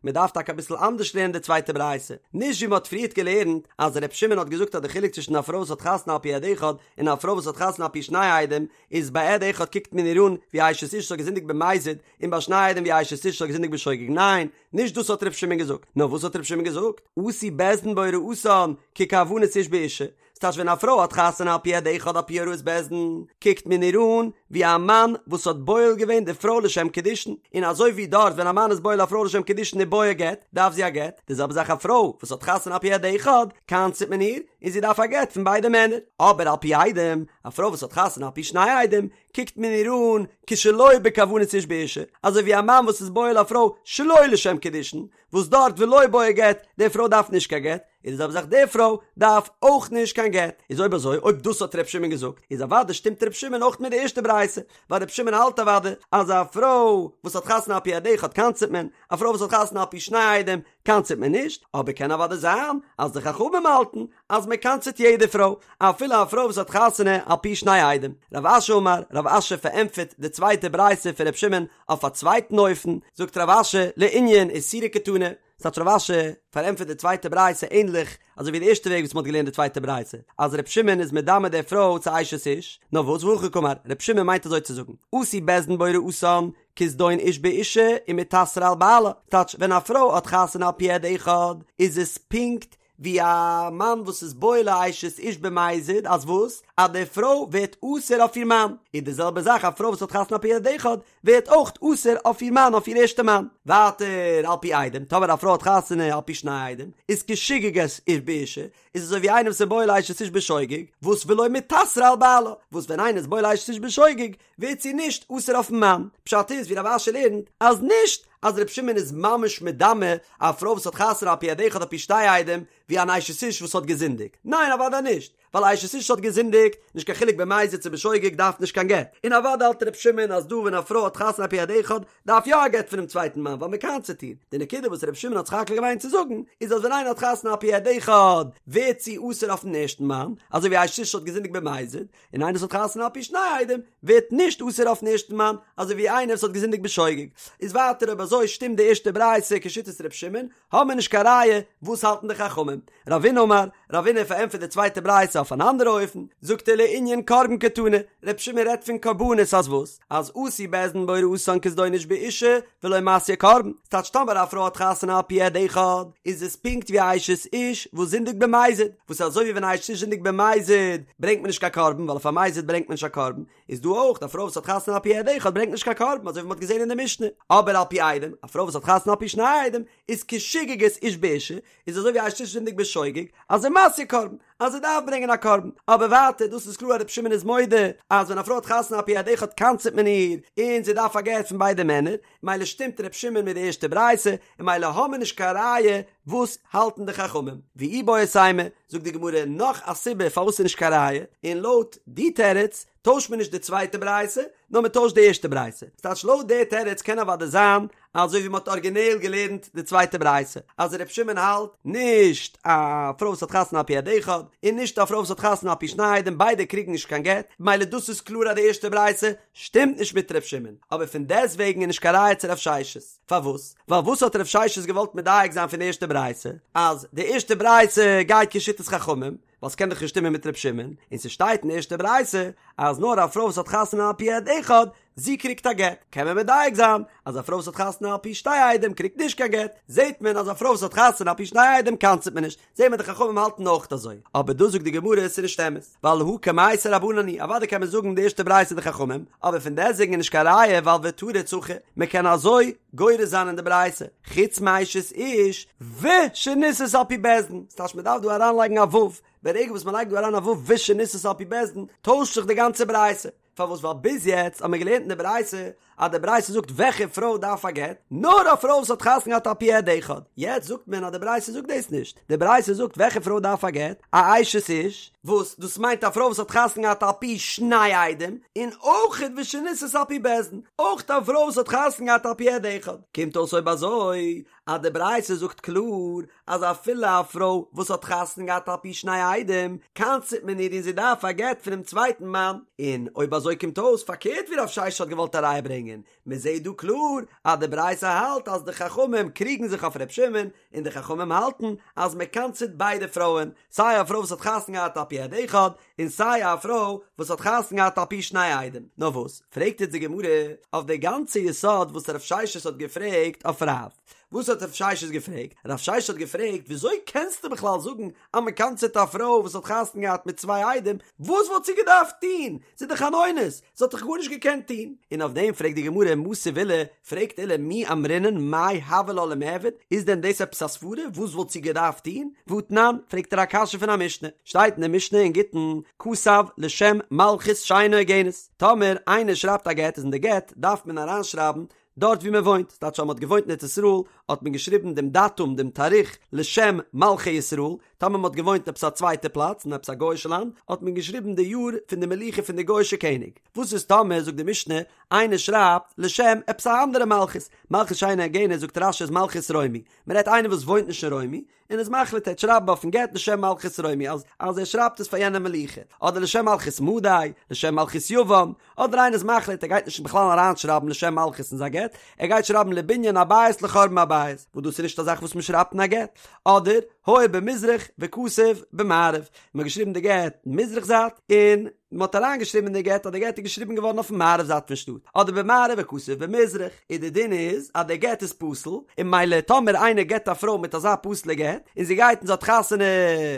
מען דארף טאקע אביסל אנדערש לערנען די צווייטע ברייתא, נישט ווי מען האט פריערט געלערנט אז ר' שמעון האט געזאגט אז די חילוק צווישן א פרוי וואס האט חתונה על פי עד אחד און א פרוי וואס האט חתונה על פי שני עדים איז ביי עד אחד קוקט מען איר אן ווי אשת איש וואס האט געזינדיגט במזיד און ביי שני עדים ווי אשת איש וואס האט געזינדיגט בשוגג, ניין, נישט דאס האט ר' שמעון געזאגט, נאר וואס האט ר' שמעון געזאגט? עשו בית דין בהוראתן ככוונת איש באשה, ס'טייטש ווען א פרוי האט חתונה על פי עד אחד על פי הוראת בית דין, קוקט מען איר אן ווי א מאן וואס האט בועל געווען די פרוי לשם קידושין, און אזוי ווי דארט ווען א מאן איז בועל א פרוי לשם קידושין ובעיא גט, דארף זי א גט, די זעלבע זאך א פרוי וואס האט חתונה על פי עד אחד, קנס'ט מען איר, און זי דארף א גט פון ביידע מענער. אבער על פי עדים, א פרוי וואס האט חתונה על פי שני עדים, קוקט מען איר אן כשלא בכוונת איש באשה, אזוי ווי א מאן וואס איז בועל א פרוי שלא לשם קידושין, וואס דארט ולא בעיא גט, די פרוי דארף נישט קיין גט, איז די זעלבע זאך די פרוי דארף אויך נישט קיין גט, איז אויב אזוי אויב דאס האט ר' שמעון געזאגט איז אוודאי שטימט ר' שמעון אויך מיט די ערשטע ברייתא, ווייל ר' שמעון האלט אוודאי אז א פרוי וואס האט חתונה על פי עד אחד קנס'ט מען, א פרוי וואס האט חתונה על פי שני עדים קנס'ט מען נישט, אבער קען אוודאי זיין אז די חכמים האלטן אז מען קנס'ט יעדע פרוי, אפילו א פרוי וואס האט חתונה על פי שני עדים. רב אשי אמר, רב אשי פארענטפערט די צווייטע ברייתא פון ר' שמעון אויף א צווייטן אופן, זאגט רב אשי, לענין איסורא קתני, ס'טייטש רב אשי פארענטפערט די צווייטע ברייתא ענליך אזוי ווי די ערשטע וועג וואס מ'האט געלערנט די צווייטע ברייתא, אז ר' שמעון איז מדמה די פרוי צו אשת איש, נאר וואס והכי קאמר, ר' שמעון מיינט אזוי צו זאגן, עשו בית דין בהוראתן, כזדון איש באשה ומתאסרה על בעלה, טייטש ווען א פרוי האט חתונה על פי עד אחד איז עס פונקט ווי א מאן וואס איז בועל א אשת איש במזיד אז וואס? אז די פרוי ווערט אסור אויף איר מאן, איז די זעלבע זאך א פרוי וואס האט חתונה על פי עד אחד ווערט אויך אסור אויף איר מאן אויף איר ערשטע מאן. ווייטער על פי עדים, טאמער א פרוי האט חתונה על פי שני עדים, איז כשוגגת איש באשה, איז אזוי ווי איינער וואס איז בועל אשת איש בשוגג, וואס ולא מיתסרא על בעלה, וואס ווען איינער איז בועל אשת איש בשוגג, ווערט זי נישט אסור אויפן מאן. פשט איז ווי רב אשי לערנט, אז נישט אז ר' שמעון איז ממש מדמה א פרוי וואס האט חתונה על פי עד אחד על פי שתי עדים, ווי אן אשת איש וואס האט געזינדיגט. ניין אוודאי נישט, ווייל אשת איש האט געזינדיגט, נישט קיין חילוק במזיד צו בשוגג דארף נישט קיין גט. און אוודאי האלט ר' שמעון אז דא ווען א פרוי האט חתונה על פי עד אחד דארף יא א גט פונעם צווייטן מאן ווייל מ'קנס'עט איר. די נקודה וואס ר' שמעון האט זיך עוקר געווען צו זאגן איז אז ווען איינער האט חתונה על פי עד אחד ווערט זי אסור אויפן ערשטן מאן, אזוי ווי אשת איש האט געזינדיגט במזיד, און איינער וואס האט חתונה על פי שני עדים ווערט נישט אסור אויפן ערשטן מאן, אזוי ווי איינער וואס האט געזינדיגט בשוגג. איז ווייטער אויב אזוי שטימט די ערשטע ברייתא כשיטת ר' שמעון, האבן מיר נישט קיין ראיה, וואס האלטן די חכמים? רבינא אמר, רבינא פארענטפערט די צווייטע ברייתא אויף אן אנדערע אופן, זאגט ער לענין קרבן קתני, ר' שמעון רעדט פון קרבנות אז וואס? אז עשו בית דין בהוראתן כזדון איש באשה ולא מתיא קרבן, ס'טייטש טאמער א פרוי האט חתונה על פי עד אחד, איז עס פונקט ווי א אשת איש וואס זינדיגט במזיד, וואס אזוי ווי ווען א אשת איש זינדיגט במזיד ברענגט מען נישט קיין קרבן ווייל אויף א מזיד ברענגט מען נישט א קרבן, איז דא אויך א פרוי וואס האט חתונה על פי עד אחד ברענגט נישט קיין קרבן אזוי ווי מ'האט געזען אין די משנה, אבער על פי עדים, א פרוי וואס האט חתונה על פי שני עדים, איז כשוגגת איש באשה, איז אזוי ווי א אשת איש זינדיגט בשוגג, אז ומתיא קרבן, אז זי דארף ברענגען א קרבן, אבער ווייטער דאס איז קלאר אז רבי שמעון איז מודה אז ווען א פרוי האט חתונה על פי עד אחד קנס'עט מען איר, און זי דארף א גט פון ביידע מענער, מילא שטימט רבי שמעון מיט די ערשטע ברייתא, און מילא האמיר נישט קיין ראיה וואס האלטן די חכמים. ואיבעית אימא, זאגט די גמרא נאך א סיבה פארוואס ס'איז נישט קיין ראיה, און לויט די תירוץ טוישט מען נישט די צווייטע ברייתא, נאר מען טוישט די ערשטע ברייתא. ס'טייטש לויט די תירוץ קען אוודאי זיין אזוי ווי מען האט ארגינעל געלערנט די צווייטע ברייתא, אז ר' שמעון האלט נישט א פרוי וואס האט חתונה על פי עד אחד, און נישט א פרוי וואס האט חתונה על פי שני עדים, ביידע קריגן נישט קיין גט, מילא דאס איז קלאר אז די ערשטע ברייתא שטימט נישט מיט ר' שמעון, אבער פון דעסטוועגן איז נישט קיין ראיה צו רב ששת. פארוואס? ווייל וואס האט רב ששת געוואלט מדייק זיין פון די ערשטע ברייתא? אז די ערשטע ברייתא גייט כשיטת חכמים, ווייל ס'קען דאך נישט שטימען מיט ר' שמעון, און ס'שטייט אין די ערשטע ברייתא אז נאר א פרוי וואס האט חתונה על פי עד אחד, זי קריגט א גט, קען מען מדייק זיין אז א פרוי וואס האט חתונה על פי שתי עדים קריגט נישט קיין גט, זעט מען אז א פרוי וואס האט חתונה על פי שני עדים קנס'ט מען נישט, זעט מען די חכמים האלטן אויך אזוי, אבער דא זאגט די גמרא עס איז נישט אמת, ווייל הא קמייתא רבנן היא, אוודאי קען מען זאגן די ערשטע ברייתא די חכמים, אבער פון דעסטוועגן איז נישט קיין ראיה ווייל ותריץ הכי, מען קען אזוי גורס זיין אין די ברייתא, חוץ מאשת איש ושנישאת על פי בית דין, ס'טייטש מען דארף דא אריינלייגן א ו', ברגע וואס מען לייגט דא אריין א ו' ושנישאת על פי בית דין, טוישט זיך די גאנצע ברייתא. פארוואס ווייל ביז יעצט האט מען געלערנט אין די ברייתא אז די ברייתא זאגט וועלכע פרוי דארף א גט, נאר א פרוי וואס האט חתונה געהאט על פי עד אחד, יעצט זאגט מען אז די ברייתא זאגט דאס נישט, די ברייתא זאגט וועלכע פרוי דארף א גט, א אשת איש, וואס דאס מיינט א פרוי וואס האט חתונה געהאט על פי שני עדים, און אויך ושנישאת על פי בית דין, אויך א פרוי וואס האט חתונה געהאט על פי עד אחד, קומט אויס אויב אזוי אז די ברייתא זאגט קלאר אז אפילו א פרוי וואס האט חתונה געהאט על פי שני עדים, קנס'ט מען איר און זי דארף א גט פונעם צווייטן מאן, און אויב אזוי קומט אויס פארקערט ווי רב ששת האט געוואלט א ראיה ברענגען, מען זעט דא קלאר אז די ברייתא האלט אז די חכמים קריגן זיך אויף ר' שמעון, און די חכמים האלטן אז מען קנס'ט ביידע פרויען, סיי א פרוי וואס האט חתונה געהאט על פי עד אחד, און סיי א פרוי וואס האט חתונה געהאט על פי שני עדים. נאר וואס, פרעגט איצט די גמרא אויף די גאנצע יסוד וואס רב ששת האט געפרעגט אויף רב. וואס האט רב ששת געפרעגט? רב ששת האט געפרעגט, וויאזוי קענסטו בכלל זאגן אז מען קנס'עט א פרוי וואס האט חתונה געהאט מיט צוויי עדים, וואס וואלט זי געדארפט טון? זי איז דאך אן אונס, זי האט דאך גארנישט געקענט טון. און אויף דעם פרעגט די גמרא, מתיב עולא, פרעגט עולא, מי אמרינן מאי הוה לה למיעבד, איז דען דאס עפעס א סברה, וואס וואלט זי געדארפט טון? והתנן, פרעגט ער א קשיא פון א משנה, שטייט אין די משנה אין גיטין, כתב לשם מלכות שאינה הוגנת, טאמער איינער שרייבט א גט איז אין די גט דארף מען אריינשרייבן דארט ווי מען וואוינט, ס'טייטש אז מען האט געוואוינט אין ארץ ישראל האט מען געשריבן דעם דאטום דעם תאריך לשם מלכי ישראל, טאמער מען האט געוואוינט עפעס א צווייטע פלאץ אין עפעס א גוי'אישע לאנד האט מען געשריבן די יאר פון די מלוכה פון די גוי'אישע קעניג, וואס איז טאמער זאגט די משנה איינער שרייבט לשם עפעס א אנדערע מלכות, מלכות שאינה הוגנת זאגט רש"י איז מלכות רומי, מען רעדט איינער וואס וואוינט נישט אין רומי, און איז מחליט ער וועט שרייבן אויפן גט לשם מלכות רומי אז אז ער שרייבט עס פאר יענע מלוכה, אדער לשם מלכות מדי, לשם מלכות יוון, אדער איינער איז מחליט ער גייט נישט בכלל אריינשרייבן לשם מלכות אין זיין גט, ער גייט שרייבן לבנין הבית לחורבן הבית, וואס דאס איז נישט א זאך וואס מען שרייבט אין א גט, אדער היה במזרח וכתב במערב, מען האט געשריבן די גט מזרח זייט און מען האט אריינגעשריבן אין די גט אז די גט איז געשריבן געווארן אויפן מערב זייט פון שטאט, אדער במערב וכתב במזרח, און די דין איז אז די גט איז פסול, און ממילא טאמער איינער גט א פרוי מיט אזא פסול'ע גט, און זי גייט און זי האט חתונה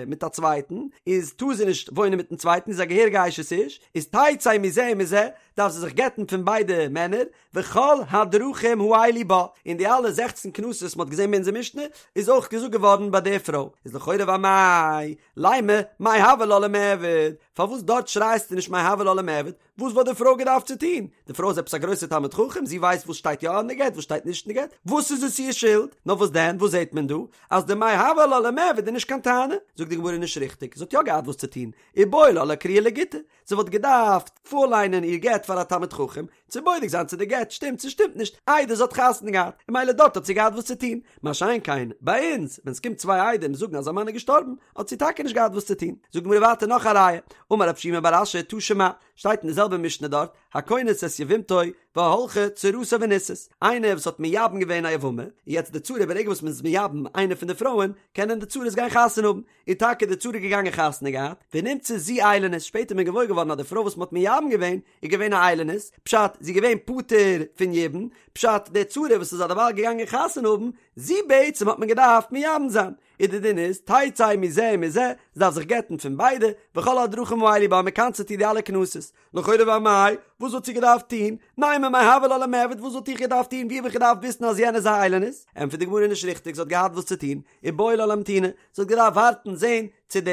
מיט א צווייטן, איז טאר זי נישט וואוינען מיטן צווייטן, איז א געהעריגע אשת איש, איז תצא מזה ומזה, דארף זי זיך גט'ן פון ביידע מענער, וכל הדרכים האלו בה, און די אלע זעכצן קנסות וואס מ'האט געזען ביי אונזער משנה, איז אויך געזאגט געווארן ביי די פרוי, איז לכאורה ואמאי, לימא, מאי הוה לה למיעבד, פארוואס דארט שרייסטו נישט מאי הוה לה למיעבד, וואס וואלט די פרוי געדארפט צו טון? די פרוי איז עפעס א גרויסע תלמיד חכם, זי ווייסט וואס שטייט יא אין די גט וואס שטייט נישט אין די גט, וואס איז עס איר שולד? נאר וואס דען, וואס זעט מען דא? אז די מאי הוה לה למיעבד איז נישט קיין טענה, זאגט די גמרא נישט ריכטיג, זי האט יא געהאט וואס צו טון, איבעי לה לאקרויי לגיטא, זי וואלט געדארפט פארליינען איר גט פאר א תלמיד חכם, צו בודק זיין צו די גט שטימט צו שטימט נישט, איידער זי האט חתונה געהאט, און ממילא דארט האט זי געהאט וואס צו טון, מה שאין כן ביי אונז, ווען ס'קומט צוויי עדים זאגן אז א מאן איז געשטארבן, האט זי טאקע נישט געהאט וואס צו טון. זאגט די גמרא ווייטער נאך א ראיה, אמר רב שימי בר אשי תא שמע, שטייט אין די זעלבע משנה דארט, הכונס את יבמתו והלכה צרתה ונישאת, איינער וואס האט מייבם געווען א יבמה, און יעצט די צרה ברגע וואס מ'איז מייבם איינע פון די פרויען, קענען די צרות גיין חתונה האבן, איז טאקע די צרה געגאנגען חתונה געהאט, ונמצאה זו איילונית, שפעטער איז מען געוואויר געווארן אז די פרוי וואס מען האט מייבם געווען איז געווען א איילונית, פשט, זי איז געווען פטור פון יבום, פשט, די צרה וואס איז אדערווייל געגאנגען חתונה האבן, זי בעצם האט מען געדארפט מייבם זיין, איז די דין איז, תצא מזה ומזה, זי דארף זיך גט'ן פון ביידע, וכל הדרכים האלו בה, מ'קנס'עט איר די אלע קנסות. לכאורה ואמאי, וואס וואלט זי געדארפט טון? נימא מאי הוה לה למיעבד, וואס וואלט איך געדארפט טון? ווי האב איך געדארפט וויסן אז יענע איז א איילונית? ענטפערט די גמרא נישט ריכטיג, זי האט געהאט וואס צו טון, איבעי לה לאמתוני, זי האט געדארפט ווארטן זען צו די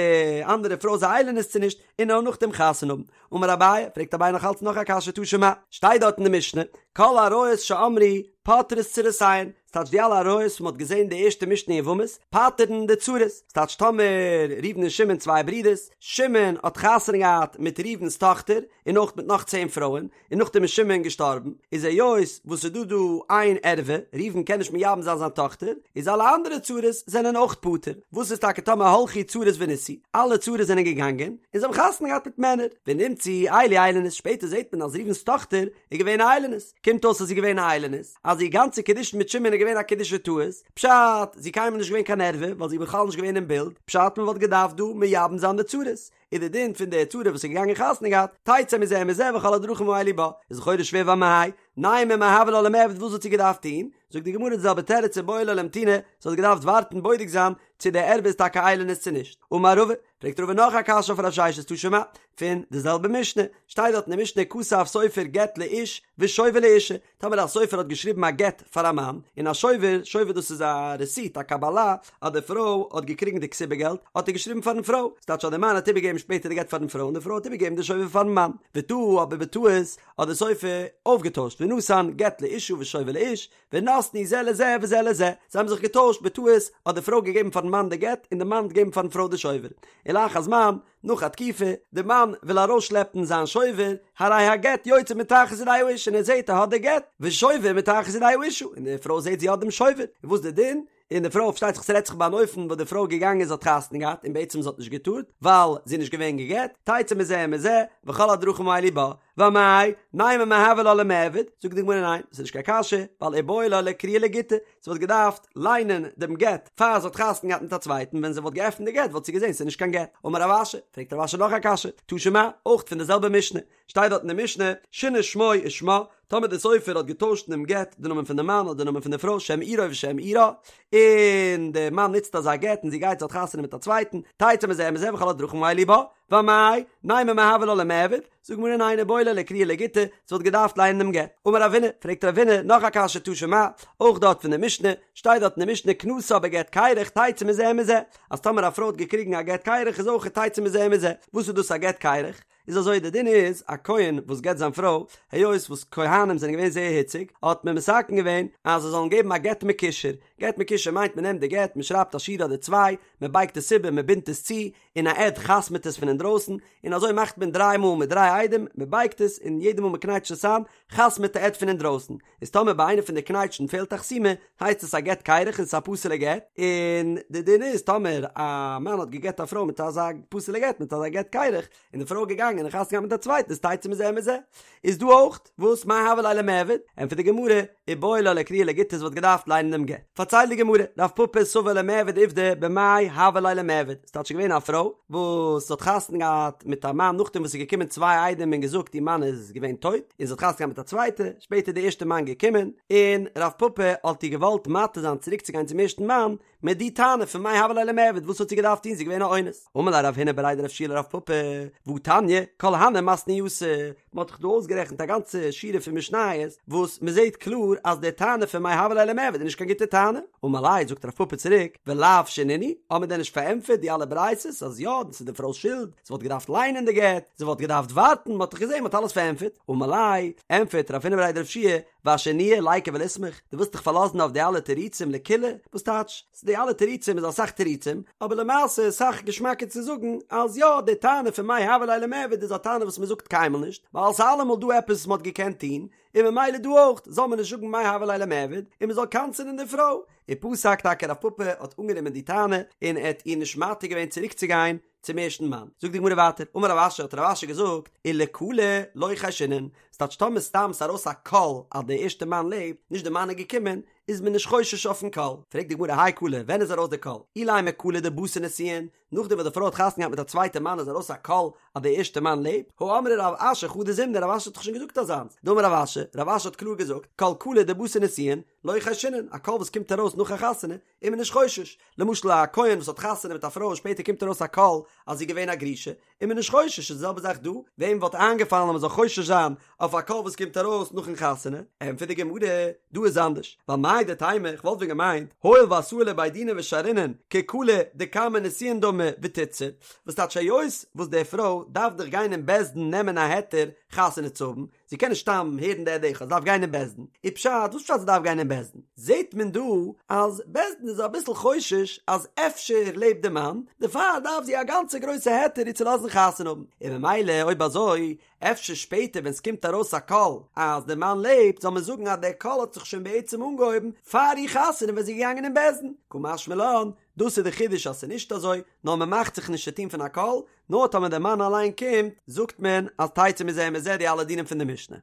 אנדערע פרוי איז א איילונית צו נישט, און נאר נאכדעם חתונה האבן. אמר אביי, פרעגט אביי נאך אלץ נאך א קשיא תא שמע, שטייט דארט אין די משנה, כל עריות שאמרו פוטרות צרותיהן, ס'טייטש די אלע עריות וואס מ'האט געזען די ערשטע משנה אין יבמות, פטר'ן די צרות, ס'טייטש טאמער ראובן און שמעון צוויי ברידערס, שמעון האט חתונה געהאט מיט ראובן'ס טאכטער, און אויך מיט נאך צען פרויען, און נאכדעם איז שמעון געשטארבן, איז היות וואס ס'איז דא דא איין ערווה, ראובן קען נישט מייבם זיין זיין טאכטער, איז אלע אנדערע צרות זענען אויך פטור, וואס איז טאקע טאמער הלכו צרות ונישאו, אלע צרות זענען געגאנגען, און זיי האבן חתונה געהאט מיט מענער, ונמצאו אלו איילוניות, שפעטער זעט מען אז ראובן'ס טאכטער איז געווען א איילונית, קומט אויס אז זי איז געווען א איילונית, אז איר גאנצע קידושין מיט שמעון איז געווען א קידושי טעות, פשט, זי איז קיינמאל נישט געווען קיין ערווה, ווייל זי איז בכלל נישט געווען אין בילד, פשט מען וואלט געדארפט דא מייבם זיין די צרות, איז די דין פון די צרה וואס איז געגאנגען חתונה געהאט, תצא מזה ומזה וכל הדרכים האלו בה, איז לכאורה שווער ואמאי, נימא מאי הוה לה למיעבד וואס וואלט זי געדארפט טון? זאגט די גמרא די זעלבע תירוץ איבעי לה לאמתוני, זי האט געדארפט ווארטן בודק זיין צו די ערווה איז טאקע איילונית צו נישט. אמר רבא, פרעגט רבא נאך א קשיא אויף רב ששת תא שמע, פון די זעלבע משנה, שטייט דארט אין די משנה כתב סופר גט לאיש ושובר לאישה, טאמער א סופר האט געשריבן א גט פאר א מאן, און א שובר, שובר דאס איז א רעסיט, א קבלה, אז די פרוי האט געקריגן די כתובה געלט, האט ער געשריבן פארן פרוי, ס'טייטש אז די מאן האט איבערגעגעבן שפעטער די גט פארן פרוי און די פרוי האט איבערגעגעבן די שובר פארן מאן, וטעה אבער בטעות האט די סופר אויפגעטוישט ונתן גט לאישה ושובר לאיש, ונתנו זה לזה וזה לזה, זיי האבן זיך געטוישט, בטעות האט די פרוי געגעבן פארן מאן די גט און די מאן האט געגעבן פארן פרוי די שובר, ולאחר זמן, נאך א תקופה, די מאן וויל ארויסשלעפן זיין שובר, הרי הגט יוצא מתחת ידי האיש און ער זעט ער האט די גט, ושובר מתחת ידי האישה, און די פרוי זעט זי האט דעם שובר, און וואס די דין? און די פרוי פארשטייט זיך ס'רעדט זיך ביי אן אופן וואס די פרוי איז געגאנגען זי האט חתונה געהאט און בעצם זי האט נישט געטארט ווייל זי איז נישט געווען גע'גט, תצא מזה ומזה, וכל הדרכים האלו בה, ואמאי, נימא מאי הוה לה למיעבד, זאגט די גמרא ניין, ס'איז נישט קיין קשיא, ווייל איבעי לה לאקרויי לגיטא, זי וואלט געדארפט ליינען דעם גט פאר זי האט חתונה געהאט מיט א צווייטן, ווען זי וואלט געעפנט די גט וואלט זי געזען ס'איז נישט קיין גט. אמר רב אשי, פרעגט רב אשי נאך א קשיא, תא שמע, אויך פון די זעלבע משנה, שטייט דארט אין די משנה, שינה שמו ושמה, טאמער דער סופר האט געטוישט אינעם גט די נאמען פון די מאן אדער די נאמען פון די פרוי שם עירו ושם עירה, און די מאן נוצט אזא גט און זי גייט זי האט חתונה מיט א צווייטן, תצא מזה ומזה וכל הדרכים האלו בה, ואמאי, נימא מאי הוה לה למיעבד, זאגט די גמרא ניין איבעי לה לאקרויי לגיטא, זי וואלט געדארפט לייענען דעם גט. אמר רבינא, פרעגט רבינא נאך א קשיא תא שמע, אויך דארט פון די משנה, שטייט דארט אין די משנה כנסה בגט קרח תצא מזה ומזה, אז טאמער א פרוי האט געקריגן א גט קרח איז אויך תצא מזה ומזה, וואס איז דאס א גט קרח? איז אזוי די דין איז א כהן וואס גט זיין פרוי, היות וואס כהנים זענען געווען זייער היציג, האט מען מתקן געווען אז זיי זאלן געבן א גט מקושר, גט מקושר מיינט מען נעמט די גט, מען שרייבט א שורה אדער צוויי, מען בייגט עס איבער, מען בינדט עס צו, און א עד חתמ'ט עס פון אינדרויסן, און אזוי מאכט מען דריי מאל מיט דריי עדים, מען בייגט עס, און יעדע מאל מען קנייטשט עס איין, חתמ'ט די עד פון אינדרויסן. איז טאמער ביי איינע פון די קנייטשן פעלט א חתימה, הייסט עס א גט קרח און ס'איז א פסול'ע גט, און די דין איז טאמער א מאן האט גע'גט א פרוי מיט אזא פסול'ע גט, מיט אזא גט קרח, און די פרוי איז געגאנגען און חתונה געהאט מיט א צווייטן איז תצא מזה ומזה. איז דא אויך וואס מאי הוה ליה למיעבד? ענטפערט די גמרא, איבעי לה לאקרויי לגיטא זי וואלט געדארפט ליינען דעם גט. פארציילט די גמרא, רב פפא סבר למיעבד עובדא במאי הוה ליה למיעבד, ס'טייטש געווען א פרוי וואס האט חתונה געהאט מיט א מאן נאכדעם וואס ס'איז געקומען צוויי עדים און געזאגט איר מאן איז געווען טויט, און זי האט חתונה געהאט מיט א צווייטע, שפעטער איז די ערשטע מאן געקומען, און רב פפא האט איר געוואלט מתיר זיין צוריק צו גיין צום ערשטן מאן, מיט די טענה פון מאי הוה ליה למיעבד וואס האט זי געדארפט טון זי איז געווען א אונס. אמר ליה רב הונא בריה דרב יהושע לרב פפא, והתניא, כל הני מתניתא, מען האט דאך דא אויסגערעכנט א גאנצע שורה פון משניות וואס מען זעט קלאר אז די טענה פון מאי הוה ליה למיעבד איז נישט קיין גוטע טענה. אמר ליה, זאגט רב פפא צוריק, ולאו שנינהו, האט מען דען נישט פארענטפערט די אלע ברייתות אז יא, דאס איז די פרוי'ס שולד, זי וואלט געדארפט ליינען די גט, זי וואלט געדארפט ווארטן, מען האט דאך געזען מען האט אלעס פארענטפערט. אמר ליה, ענטפערט רב הונא בריה דרב יהושע, ואשינויי ליקו וליסמוך, דו ווילסט דיך פארלאזן אויף די אלע תירוצים לקולא? וואס טייטש? די אלע תירוצים איז אסאך תירוצים, אבער למעשה איז סאך געשמאקער צו זאגן אז יא, די טענה פון מאי הוה ליה למיעבד איז א טענה וואס מען זאגט קיינמאל נישט, ווייל ס'איז אלעמאל דא עפעס וואס מען האט געקענט טון, און ממילא דא אויך זאל מען נישט זאגן מאי הוה ליה למיעבד, און מען זאל קנס'ענען די פרוי. ופסק טאקע רב פפא האט אנגענומען די טענה, און ער האט איר נישט מתיר געווען צוריקצוגיין צום ערשטן מאן. זאגט די גמרא ווייטער, אמר רב אשי האט רב אשי געזאגט, ולקלא לא חיישינן, ס'טייטש טאמער סתם ס'ארויס א קול אז דער ערשטער מאן לעבט, נישט דער מאן איז געקומען, איז מען נישט חושש אויפן קול. פרעגט די גמרא האי קלא, ווען איז ארויס דער קול? אילימא קלא דבתר נישואין, נאכדעם וואס די פרוי האט חתונה געהאט מיט א צווייטע מאן איז ארויס א קול אז דער ערשטער מאן לעבט? הא אמרה רב אשי חדא זימנא, רב אשי האט דאך שוין געזאגט אזאנס, דאמר רב אשי, רב אשי האט קלאר געזאגט, כל קלא דבתר נישואין, לא חיישינן, א קול וואס קומט ארויס נאך א חתונה, איז מען נישט חושש. למשל א כהן וואס האט חתונה מיט א פרוי און שפעטער קומט ארויס א קול אז זי איז געווען א גרושה, איז מען נישט חושש, איז די זעלבע זאך דא, וועם וואלט איינגעפאלן אז מען זאל חושש זיין אויף א קול וואס קומט ארויס נאכן חתונה? ענטפערט די גמרא, דא איז אנדערש, ווייל מהו דתימא, איך וואלט ווען געמיינט, הואיל ואתאי לבי דינא ושרינן כקלא דקמי נישואין דמי ותיתסר, וואס טייטש היות וואס די פרוי דארף דאך גיין אין בית דין נעמען א היתר חתונה צו האבן, זי קען נישט סתם הערן די עד אחד, זי דארף גיין אין בית דין. און פשט, וואס פשט זי דארף גיין אין בית דין? זעט מען דא אז בית דין איז אביסל חושש אז אפשר לעבט די מאן, דערפאר דארף זי א גאנצע גרויסע היתר איר צו לאזן חתונה האבן. און ממילא אויב אזוי, אפשר שפעטער ווען ס'קומט ארויס א קול אז די מאן לעבט, זאל מען זאגן אז דער קול האט זיך שוין בעצם אנגעהויבן פאר איר חתונה ווען זי איז געגאנגען אין בית דין. קא משמע לן, דאס איז די חידוש אז ס'איז נישט אזוי, נאר מ'מאכט זיך נישט צו טון פון א קול, נאר טאמער דער מאן אליין קומט, זאגט מען אז תצא מזה ומזה די אלע דינים פון די משנה.